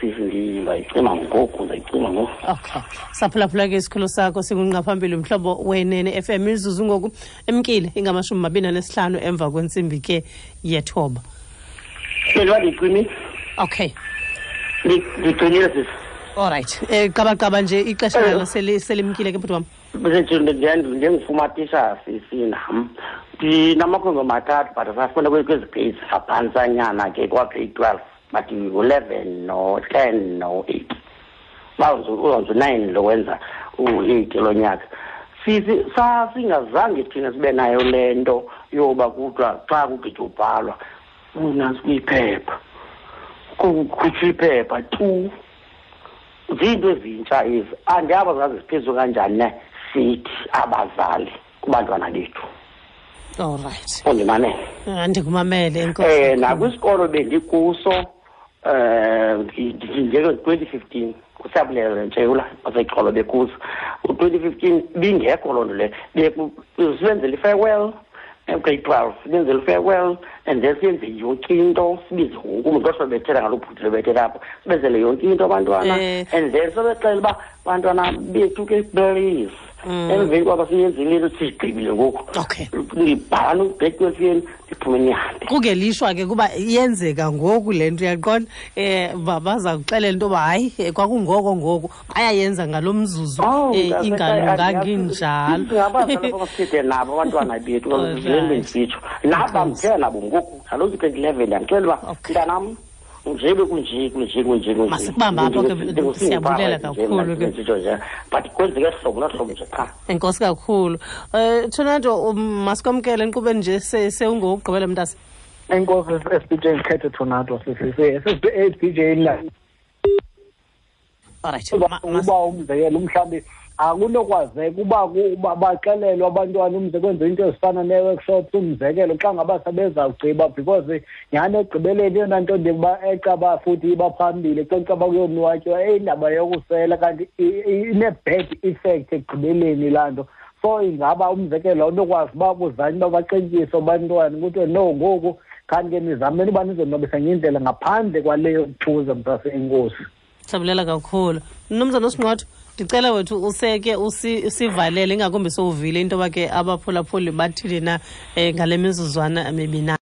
Sisi, ndizayicima ngoku, ndizayicima ngoku. Okay, saphulaphula ke isikhulu sakho singungqaphambili Mhlobo Wenene FM. Imizuzu ngoku emkile ingama-25 emva kwentsimbi ke yethoba. Bendiba ndiyicimile. Okay. Ndicimile, sisi. Alright, qabaqaba nje, ixesha nalo selimkile ke, bhuti wam. Njengifumatisa, sisi, nam ndinamakhwenkwe mathathu, but asafunda kwezi grades ngaphantsanyana ke, kwa-grade 12, but ngu-11 no-10 no-8, uzawuze u-9 lo wenza u-8 lo nyaka. Sisi, sasingazange thina sibe nayo le nto yoba kuthiwa xa kugqitywa ubhalwa unantsi kwiphepha, kukhutshwa iphepha tu. Ziinto ezintsha ezi, andiyaba zazi ziphezulu kanjani ne sithi abazali kubantwana bethu. Alright. Undimamele? Andikumamele, enkosi. Nakwisikolo bendikuso njenge-2015, kuSiyabulela Ntshewula waseXolo, bekuso u-2015, bingekho loo nto leyo. Sibenzela i-farewell, grade 12, sibenzela i-farewell and then siyenze yonke into, sibize wonke umntu kodwa bethela ngaloo bhuti bebethela apho, sibenzele yonke into abantwana and then sobexela uba bantwana bethu ke, please, emveni kwaba siyenzile into, sigqibile ngoku, ndibhala u-grade 12 yenu, ndiphume nihambe. Kungelishwa ke kuba iyenzeka ngoku le nto, uyaqonda, baza kuxelela into yoba hayi, kwakungoko ngoku bayayenza ngalo mzuzu. Oh, Ingalunganga injalo. Singabazali abasithethe nabo abantwana bethu. Le nto ndisitsho naba ndithetha nabo ngoku, kaloku 2011, ndiyamxelela uba mntanam, njebe kunje, kunje, kunje, kunje. Masikubamba apho ke, siyabulela kakhulu ke. Ndisitsho nje, but kwenzeke hlobo nohlobo nje qha. Enkosi kakhulu, Tornado. Masikwamkele enkqubeni nje, sewungowokugqibela, mntase. Enkosi, SBJ. Ndikhethe Tornado, sisi-SBJ la. Alright. Uba umzekelo, mhlawumbi akunokwazeka uba baxelelwe abantwana, umze kwenziwe into ezifana nee-workshops, umzekelo xa ngaba sebezawugqiba, because nyhani ekugqibeleni eyona nto ndiba ecaba futhi iba phambili xa caba kuyonwatywa indaba yokusela, kanti ine-bad effect ekugqibeleni laa nto. So ingaba umzekelo awunokwazi uba kuzanywe uba baxetyiswe abantwana kuthiwe no, ngoku kanti ke nizameni uba nizonwabisa ngendlela ngaphandle kwaleyo kuthuza, mntase. Enkosi. Sabulela kakhulu, mnumzana uSinqotho. Ndicela wethu useke usivalele, ingakumbi sowuvile into yoba ke abaphulaphuli bathini na ngale mizuzwana mibina.